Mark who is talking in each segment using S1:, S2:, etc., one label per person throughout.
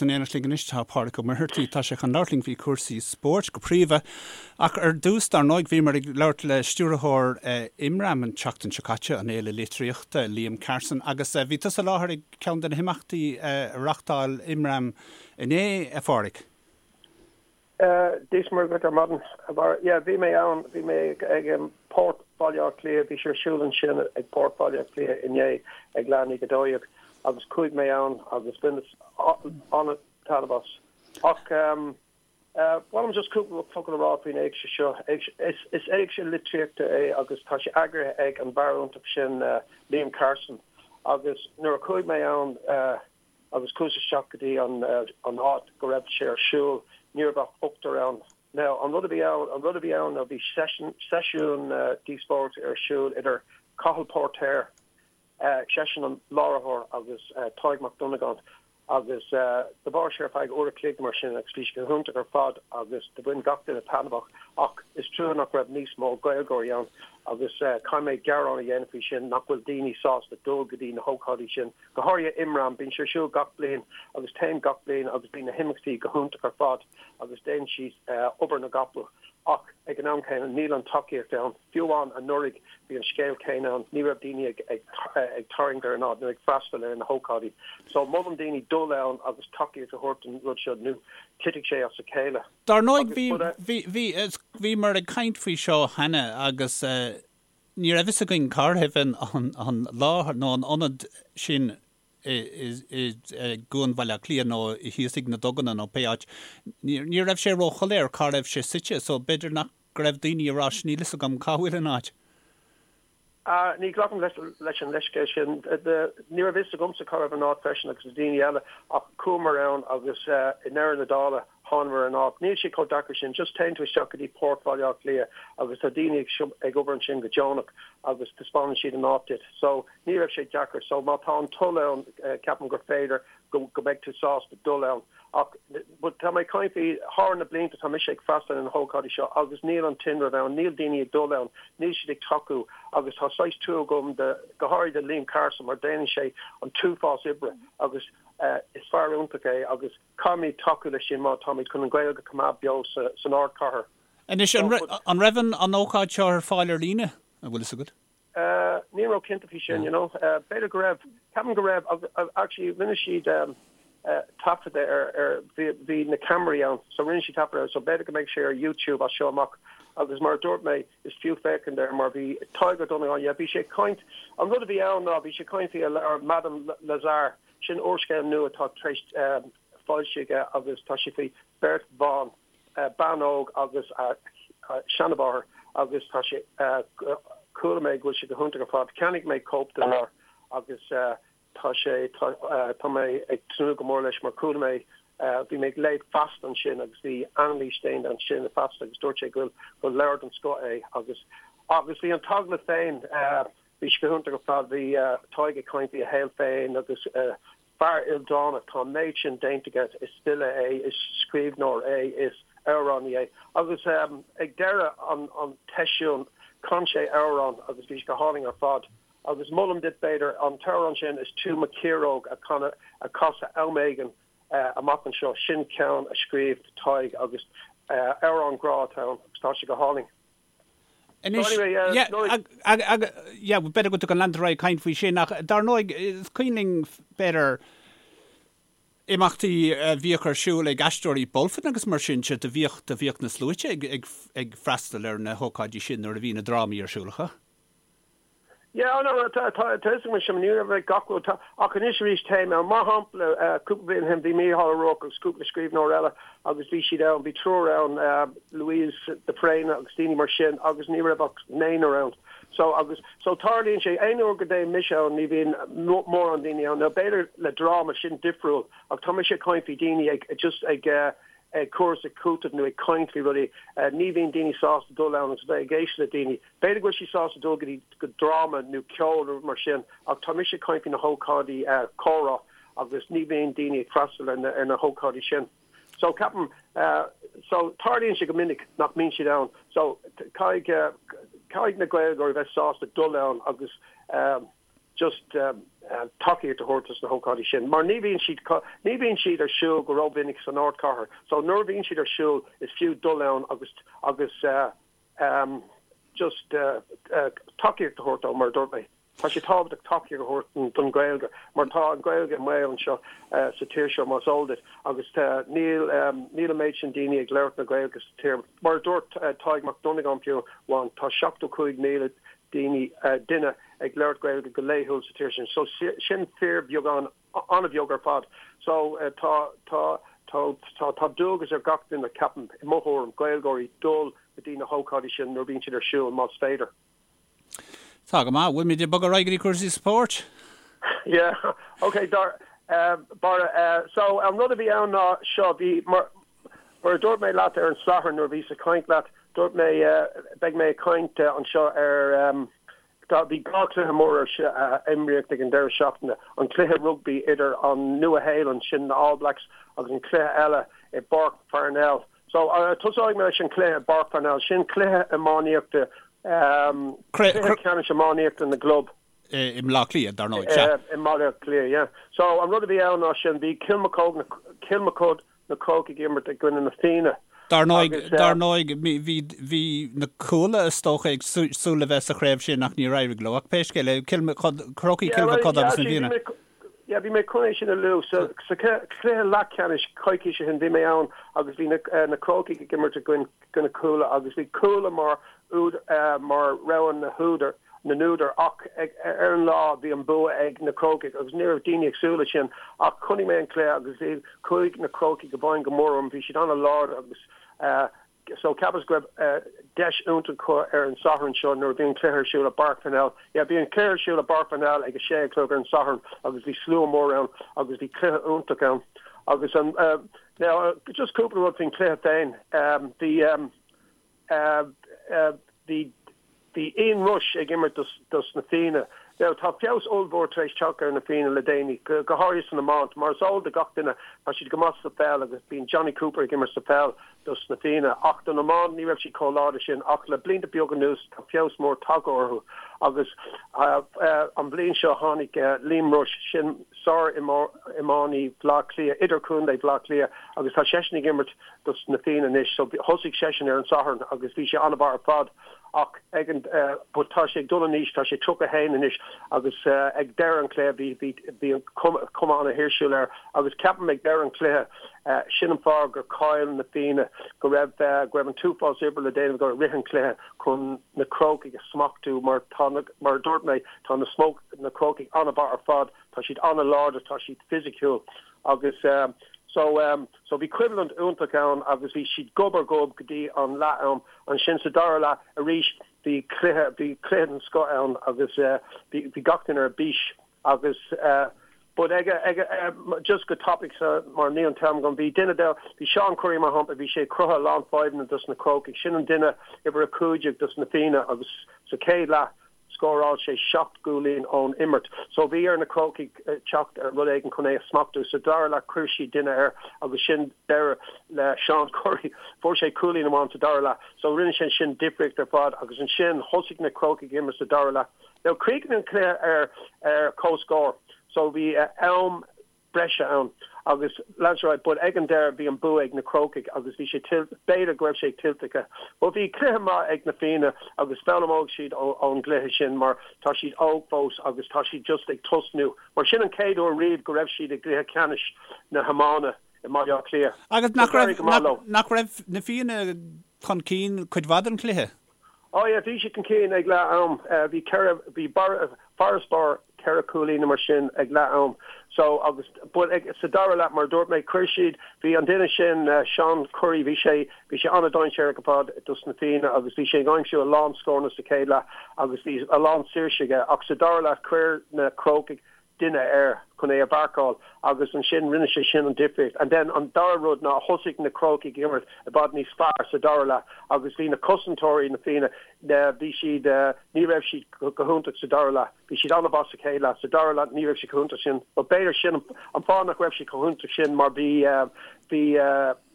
S1: In éineacht linn anois tá Pádraig Ó Muircheartaigh. Tá sé chun labhairt linn faoi chúrsaí spóirt go príomha. Ach ar dtús, dar ndóigh, bhíomar ag labhairt le stiúrthóir Imram an tseachtain seo caite, an Fhéile Litríochta, Liam Carson, agus bhí tusa i láthair ag ceann de na himeachtaí a reachtáil Imram inné, a Phádraig.
S2: Dia is Muire dhuit ar maidin, a Bharra. Yeah, bhí mé ann, bhí mé ag Port Bhaile Átha Cliath, bhí sé ar siúl ansin ag Port Bhaile Átha Cliath inné ag leath i ndiaidh 12 agus chuaigh mé ann agus bhaineas an-taitneamh as. Ach ba mhaith liom just cúpla focal a rá faoin éigse seo. Is éigse litríochta é agus tá sé eagraithe ag an bhfear iontach sin Liam Carson agus nuair a chuaigh mé ann, agus chuas isteach go dtí an áit go raibh sé ar siúl, ní raibh ach ochtar ann. Now, an rud a bhí ann, an rud a bhí ann ná bhí seisiún díospóireachta ar siúl idir Cathal Póirtéir, seisean an láithreoir, agus Tadhg Mac Dhonnagáin, agus do mhair sé ar feadh uair a chloig mar sin agus bhí sé go hiontach ar fad agus do bhain gach duine taitneamh as ach is trua nach raibh níos mó Gaeilgeoirí ann agus caithfidh mé gearán a dhéanamh faoi sin nach bhfuil daoine sásta dul go dtí na hócáidí sin. Go háirithe Imram, bíonn sé ar siúl gach bliain agus téim gach bliain agus bíonn na himeachtaí go hiontach ar fad agus déanann siad obair na gcapall ach ag an am céanna níl an tacaíocht ann. Fiú amháin anuraidh bhí an scéal céanna ann, ní raibh daoine ag ag tarraingt ar an áit nó ag freastal ar na hócáidí. So molaim daoine dul ann agus tacaíocht a thabhairt don rud seo nó titfidh sé as a chéile.
S1: Dar ndóigh bhí bhí bhí bhíomar ag caint faoi seo cheana agus Ní raibh fhios againn cá raibh an láthair nó an ionad sin i gCuan Bhaile Átha Cliath nó thíos ag na Duganna nó pé áit. Ní raibh sé róshoiléir cá raibh sé suite so b'fhéidir nach go raibh daoine ag rá níl fhios agam cá bhfuil an áit.
S2: Ní ghlacaim leis an leithscéal sin. Ní raibh fhios agamsa cá raibh an áit freisin agus na daoine eile ach chuamar ann agus i ndeireadh na dála Thángamar ar an áit. Níl sé chomh deacair sin, just téann tú isteach go dtí Port Bhaile Átha Cliath agus tá daoine ag obair ansin go deonach agus taispeánann siad an áit duit. So, ní raibh sé deacair. So, má tá an toil ann, ceapaim gur féidir go go mbeidh tú sásta dul ann. Ach, but tá mé ag caint faoi, thar na blianta tá mise ag freastal ar na hócáidí seo agus níl an tinreamh ann, níl daoine ag dul ann, níl siad ag tacú agus tá saghas trua agam do, go háirithe do Liam Carson mar déanann sé an t-uafás oibre agus is fear iontach é agus Caithfimid tacú leis sin má táimid chun an Ghaeilge a choimeád beo san ardchathair.
S1: Anois, an raibh an ócáid seo ar fáil ar líne, an bhfuil fhios agat?
S2: Níl mé cinnte faoi sin, you know. B'fhéidir go raibh. Ceapaim go raibh. Actually, rinne siad taifeadadh ar, bhí na ceamaraí ann, so rinne siad taifeadadh air, so b'fhéidir go mbeidh sé ar YouTube as seo amach. Agus mar a dúirt mé, is fiú féachaint air mar bhí Tadhg Ó Donnabháin, yeah, bhí sé ag caint, an rud a bhí ann ná bhí sé ag caint faoi a leabhar Madame Lazare, Sin úrscéal nua atá tar éis foilsiú aige agus tá sé faoi bheirt bhan, bean óg agus a seanmháthair agus tá sé, chuala mé go bhfuil sé go hiontach ar fad. Cheannaigh mé cóip den leabhar agus tá sé, tá mé ag tnúth go mór leis mar chuala mé, bhí mé ag léamh Feasta ansin agus bhí anailís déanta ansin i Feasta agus dúirt sé go bhfuil, gur leabhar den scoth é agus, agus bhí an t-agallamh féin, Bhí sé go hiontach ar fad. Bhí Tadhg ag caint faoi a shaol féin agus fear ildánach, tá an méid sin déanta aige, is file é, is scríbhneoir é, is amhránaí é. Agus ag deireadh an tseisiúin chan sé amhrán agus bhí sé go hálainn ar fad. Agus molaim duit b'fhéidir an t-amhrán sin 'Is tú mo chiaróg' a chanadh, a chasadh am éigin amach anseo. Sin ceann a scríobh Tadhg agus amhrán grá atá ann agus tá sé go hálainn.
S1: Anois, yeah, yeah, b'fhéidir go dtugann leantar ar aghaidh ag caint faoi sin, ach dar ndóigh, is cuimhin linn, b'fhéidir, imeachtaí a bhíodh ar siúl ag Aisteoirí Bulfin agus mar sin de, do bhíodh, do bhíodh na sluaite ag, ag, ag freastal ar na hócáidí sin nuair a bhí na drámaí ar siúl acu.
S2: Yeah, oh no, tá, tá, tá fhios agam sin, ní raibh ag gach rud, tá, ach anois arís téim ann. Mar shampla, cúpla bliain ó shin bhí Mícheál Ó Ruairc agus cúpla scríbhneoir eile agus bhí siad ann, bhí triúr ann, Louise de Fréine agus daoine mar sin agus ní raibh ach naonúr ann. So, agus, so tarlaíonn sé, aon uair go dtéim mise ann ní bhíonn mórán daoine ann. Now b'fhéidir le dráma, sin difriúil ach tá mise ag caint faoi daoine ag, just ag, ag cur is ag cúiteamh nó ag caint faoi rudaí, ní bhíonn daoine sásta dul ann agus bheith ag éisteacht le daoine. B'fhéidir go bhfuil siad sásta dul go dtí go dráma nó ceol nó rud mar sin ach tá mise ag caint faoi na hócáidí comhrá agus ní bhíonn daoine ag freastal ar na ar na hócáidí sin. So ceapaim so tarlaíonn sé go minic nach mbíonn siad ann. So caithfidh caithfidh na Gaeilgeoirí bheith sásta dul ann agus. Just tacaíocht a thabhairt dos na hócáidí sin mar ní bhíonn siad, ní bhíonn siad ar siúl go rómhinic san ardchathair so nuair a bhíonn siad ar siúl is fiú dul ann agus agus just tacaíocht a thabhairt dó mar a dúirt mé. Tá sé tábhachtach tacaíocht a thabhairt don Ghaeilge mar tá an Ghaeilge i mbaol anseo sa tír seo más eol duit agus níl níl an méid sin daoine ag labhairt na Gaeilge sa tír. Mar a dúirt Tadhg Mac Dhonnagáin fiú amháin tá 75,000 daoine duine ag labhairt Gaeilge go laethúil sa tír sin so sin fíorbheagán an-bheag ar fad. So tá tá tá tá tá dualgas ar gach duine ceapaim i mo thuairim Gaeilgeoirí dul go dtí na hócáidí sin nuair a bhíonn siad ar siúl más féidir.
S1: Tá go maith. Bhfuilimid ag bogadh ar aghaidh go dtí cúrsaí spóirt?
S2: Yeah, ok, dar, Barra, so an rud a bhí ann ná seo, bhí, mar, mar a dúirt mé leat ar an Satharn nuair a bhíos ag caint leat, dúirt mé, beidh mé ag caint anseo ar, tá, bhí dhá chluiche mór ar, imríodh ag an deireadh seachtaine, an cluiche rugbaí idir an Nua-Shéalainn, sin na All Blacks, agus an cluiche eile i bPáirc Pharnell, So, tosóidh mé leis an cluiche i bPáirc Pharnell. Sin cluiche iománaíochta, cluiche ceannais iománaíochta na gclub.
S1: I mBaile Átha Cliath, dar ndóigh, sea.
S2: I mBaile Átha Cliath, yeah. So, an rud a bhí ann ná sin, bhí Kilmacud, Kilmacud na Crócaigh ag imirt i gcoinne na Fianna.
S1: Dar ndóigh, dar ndóigh, bhí, bhí na Cuala is dócha ag súil le bheith sa chraobh sin ach níor éirigh leo. Ach pé scéal é, Kilmacud, Crócaigh, Kilmacud agus na Fianna.
S2: Yeah, bhí mé chun é sin a lua. Sa chluiche leathcheannais coicís ó shin, bhí mé ann agus bhí na Crócaigh ag imirt i gcoinne Cuala agus bhí Cuala mar mar rogha na húdar, na n-údar ach ar an lá bhí an bua ag na Crócaigh agus ní raibh daoine ag súil leis sin ach chonaic mé an cluiche agus bhí chuaigh na Crócaigh i bhfeidhm go mór orm, bhí siad an-láidir agus So cheapas go raibh deis iontach acu ar an Satharn seo nuair a bhí an cluiche ar siúl i bPáirc Pharnell. Yeah, bhí an cluiche ar siúl i bPáirc Pharnell ag a sé a chlog ar an Satharn agus bhí slua mór ann agus bhí cluiche iontach ann. Agus an, now, just cúpla rud faoin chluiche féin. Bhí, bhí, Bhí Ian Rush ag imirt dos na Fianna. Now tá feabhas ollmhór tar éis teacht ar na Fianna le déanaí, go háirithe san iomáint. Mar is eol do gach duine, tá siad go maith sa pheil agus bíonn Jonny Cooper ag imirt sa pheil dos na Fianna. Ach don iomáint ní raibh siad chomh láidir sin ach le blianta beaga anuas tá feabhas mór tagtha orthu agus an bhliain seo tháinig Liam Rushe, sin sár-iománaí Bhaile Átha Cliath, idirchontae Bhaile Átha Cliath agus tá seisean ag imirt dos na Fianna anois. So thosaigh seisean ar an Satharn agus bhí sé an-mhaith ar fad. Ach ag an, but tá sé ag dul in aois, tá sé 31 anois agus ag deireadh an chluiche bhí, bhí, bhí an cuma, cuma an-thuirsiúil air agus ceapaim ag deireadh an chluiche, sin an fáth gur chaill na Fianna, go raibh, go raibh an t-uafás oibre le déanamh acu i rith an chluiche chun na Crócaigh a smachtú mar tá na, mar a dúirt mé, tá na smoke, na Crócaigh an-mhaith ar fad, tá siad an-láidir, tá siad fisiciúil agus so, so bhí coimhlint iontach ann agus bhí siad gob ar ghob go dtí an leath-am. Ansin sa dara leath arís bhí cluiche, bhí cluiche den scoth ann agus bhí, bhí gach duine ar bís agus but ag, ag, just go tapaidh sa, mar níl an t-am agam, bhí duine de, bhí Seán Currie mar shampla, bhí sé ag cruthú a lán fadhbanna dos na Crócaigh, sin an duine uimhir 15 dos na Fianna agus sa chéad leath, Scóráil sé 7 gcúilín ón imirt. So bhí ar na Crócaigh teacht ar rud éigin chun é a smachtú. Sa dara leath chuir siad duine air agus sin deireadh le Seán Currie. Fuair sé cúilín amháin sa dara leath. So rinne sé sin difríocht ar fad agus ansin thosaigh na Crócaigh ag imirt sa dara leath. Now chríochnaigh an cluiche ar ar comhscór. So bhí am breise ann agus lean sé ar aghaidh but ag an deireadh bhí an bua ag na Crócaigh agus bhí sé tuillte, b'fhéidir go raibh sé tuillte acu. But bhí cluiche maith ag na Fianna agus foghlaimeoidh siad ón gcluiche sin mar tá siad óg fós agus tá siad just ag tosnú mar sin an chéad uair riamh go raibh siad i gcluiche ceannais na hiomána i mBaile Átha Cliath.
S1: Agus nach raibh, nach raibh na Fianna chun cinn cuid mhaith den chluiche?
S2: Oh yeah, bhí siad chun cinn ag leath am. Bhí ceithre, bhí farasbarr ceithre cúilín nó mar sin ag leath am. So agus, but ag, sa dara leath, mar a dúirt mé, chuir siad, bhí an duine sin, Seán Currie, bhí sé, bhí sé an-dainséarach ar fad dos na Fianna agus bhí sé ag aimsiú a lán scóranna sa chéad leath agus bhí a lán saoirse aige ach sa dara leath chuir na Crócaigh duine air chun é a mharcáil agus ansin rinne sé sin an difríocht. And then an dara rud ná thosaigh na Crócaigh ag imirt i bhfad níos fearr sa dara leath agus bhí na cosantóirí na Fianna, bhí siad, ní raibh siad go hiontach sa dara leath. Bhí siad an-mhaith sa chéad leath. Sa dara leath ní raibh siad chomh hiontach sin. But b'fhéidir sin an fáth nach raibh siad chomh hiontach sin mar bhí, bhí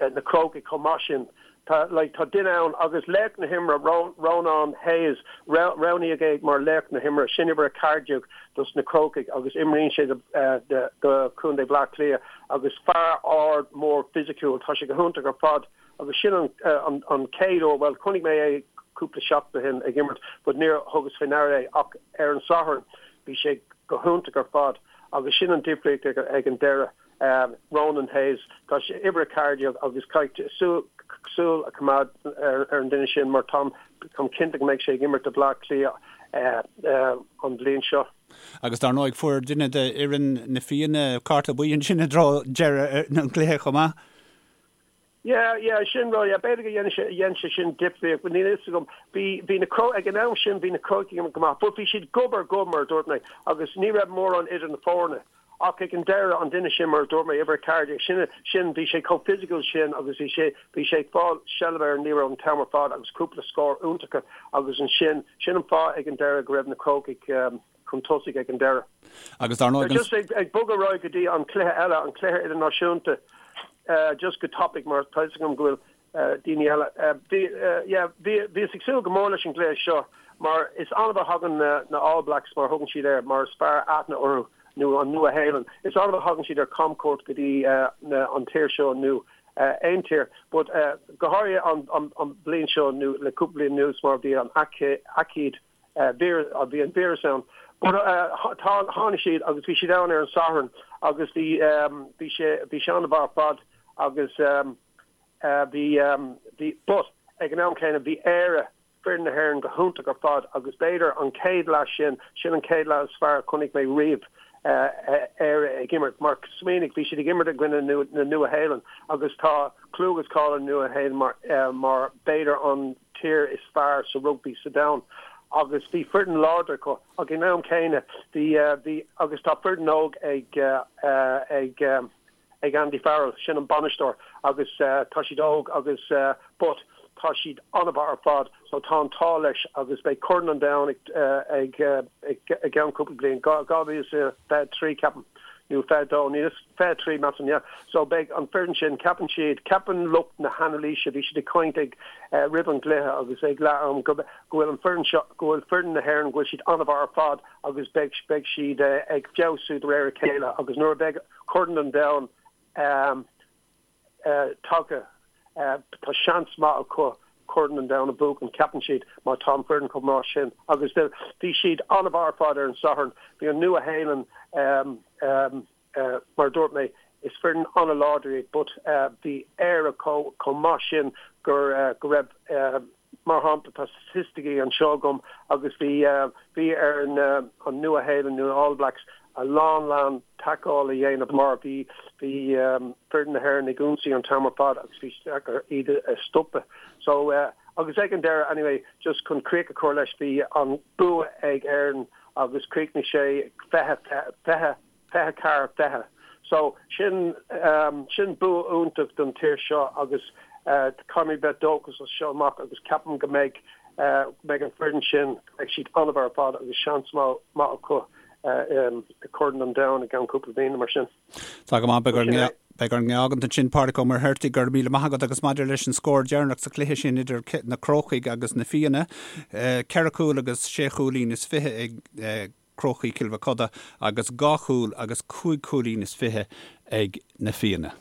S2: na Crócaigh chomh maith sin. Tá, like, tá duine ann agus laoch na himeartha, Rónán Hayes, roghnaíodh é mar laoch na himeartha, sin uimhir 14 dos na Crócaigh agus imríonn sé do, do Chontae Bhleá Cliath agus fear ard mór fisiciúil, tá sé go hiontach ar fad agus sin an, an, an chéad uair, bhuel, chonaic mé é cúpla seachtain ó shin ag imirt but níor thugas faoi ndeara é ach ar an Satharn bhí sé go hiontach ar fad agus sin an difríocht ag, ag an deireadh. Ronan Hayes, tá sé uimhir 14 agus caithfidh súil a choimeád ar an duine sin mar táim cinnte go mbeidh sé ag imirt do Bhleá Cliath an bhliain seo.
S1: Agus dar ndóigh fuair duine de fhoireann na Fianna cárta buí ansin i dtreo deireadh an chluiche chomh maith.
S2: Yeah, yeah, sin rud, yeah, b'fhéidir go dhein sé, dhein sé sin difríocht, but níl a fhios agam. Bhí, bhí na Cro, ag an am sin bhí na Crócaigh go maith, but bhí siad gob ar ghob mar a dúirt mé, agus ní raibh mórán idir na foirne. Ach ag an deireadh, an duine sin, mar a dúirt mé, uimhir 14, sin, sin, bhí sé chomh physical sin agus bhí sé, bhí sé ag fáil seilbh ar an liathróid an t-am ar fad agus cúpla scór iontacha agus ansin, sin an fáth ag an deireadh go raibh na Crócaigh, chun tosaigh ag an deireadh.
S1: Agus dar ndóigh an.
S2: Just ag bogadh ar aghaidh go dtí an cluiche eile, an cluiche idirnáisiúnta, just go tapaidh mar tá fhios agam go bhfuil daoine eile. Bhí, yeah, bhí, bhíos ag súil go mór leis an gcluiche seo mar is annamh a thagann na All Blacks mar a thugann siad air, mar is fearr aithne orthu, nó an Nua-Shéalainn, is annamh a thagann siad ar camchuairt go dtí an tír seo nó aon tír. But go háirithe an bhliain seo nó le cúpla bliain anuas mar bhí an aicíd bhí an víreas ann. But tá, tháinig siad agus bhí siad ann ar an Satharn agus bhí, bhí sé, bhí sé an-mhaith ar fad agus bhí, bhí, but ag an am céanna bhí Éire, foireann na hÉireann go hiontach ar fad agus b'fhéidir an chéad leath sin, sin an chéad leath is fearr a chonaic mé riamh Éire ag imirt mar smaoinigh, bhí siad ag imirt i gcoinne na Nua-Shéalainn agus tá clú agus cáil ar Nua-Shéalainn mar, mar b'fhéidir an tír is fearr sa rugbaí sa domhan agus bhí foireann láidir acu ach ag an am céanna bhí bhí agus tá foireann óg ag ag ag Andy Farrell, sin an bainisteoir agus tá siad óg agus but tá siad an-mhaith ar fad so tá an t-ádh leis agus beidh Corn an Domhain ag ag i gceann cúpla bliain, 2023 ceapaim. nó 22, níl fhios, 23 measaim, yeah. So beidh an foireann sin, ceapann siad, ceapann lucht na hanailíse, bhí siad ag caint ag, roimh an gcluiche agus ag leath am go, go bhfuil an foireann seo, go bhfuil foireann na hÉireann, go bhfuil siad an-mhaith ar fad agus beidh, beidh siad ag feabhsú de réir a chéile agus nuair a bheidh Corn an Domhain, tagtha. Tá seans maith acu Corn an Domhain a bhuachan, ceapann siad, má tá an foireann chomh maith sin. Agus bhí siad an-mhaith ar fad ar an Satharn. Bhí an Nua-Shéalainn, mar a dúirt mé, is foireann an-láidir iad but bhí Éire chomh maith sin go raibh, Mar shampla, tá staitisticí anseo agam agus bhí, bhí ar na, an Nua-Shéalainn nó na All Blacks a lán lán tacáil a dhéanamh mar bhí, bhí foireann na hÉireann ag ionsaí an t-am ar fad agus bhí sé deacair iad a stopadh. So, agus ag an deireadh anyway, just chun críoch a chur leis, bhí an bua ag Éirinn agus chríochnaigh sé 20, 20, 24, 20. So, sin, sin bua iontach don tír seo agus caithfimid bheith dóchasach as seo amach agus ceapaim go mbeidh, go mbeidh an foireann sin, go mbeidh siad an-mhaith ar fad agus seans maith acu i Corn an Domhain i gceann cúpla bliana mar sin.
S1: Tá go maith, beidh orainn, beidh orainn é a fhágaint ansin Pádraic Ó Muircheartaigh, go raibh míle maith agat agus maidir leis an scór deireanach sa chluiche sin idir na Crócaigh agus na Fianna, ceithre chúl agus sé chúilín is fiche ag Crócaigh Chill Mochuda agus 2 chúl agus 5 chúilín is 20 ag na Fianna.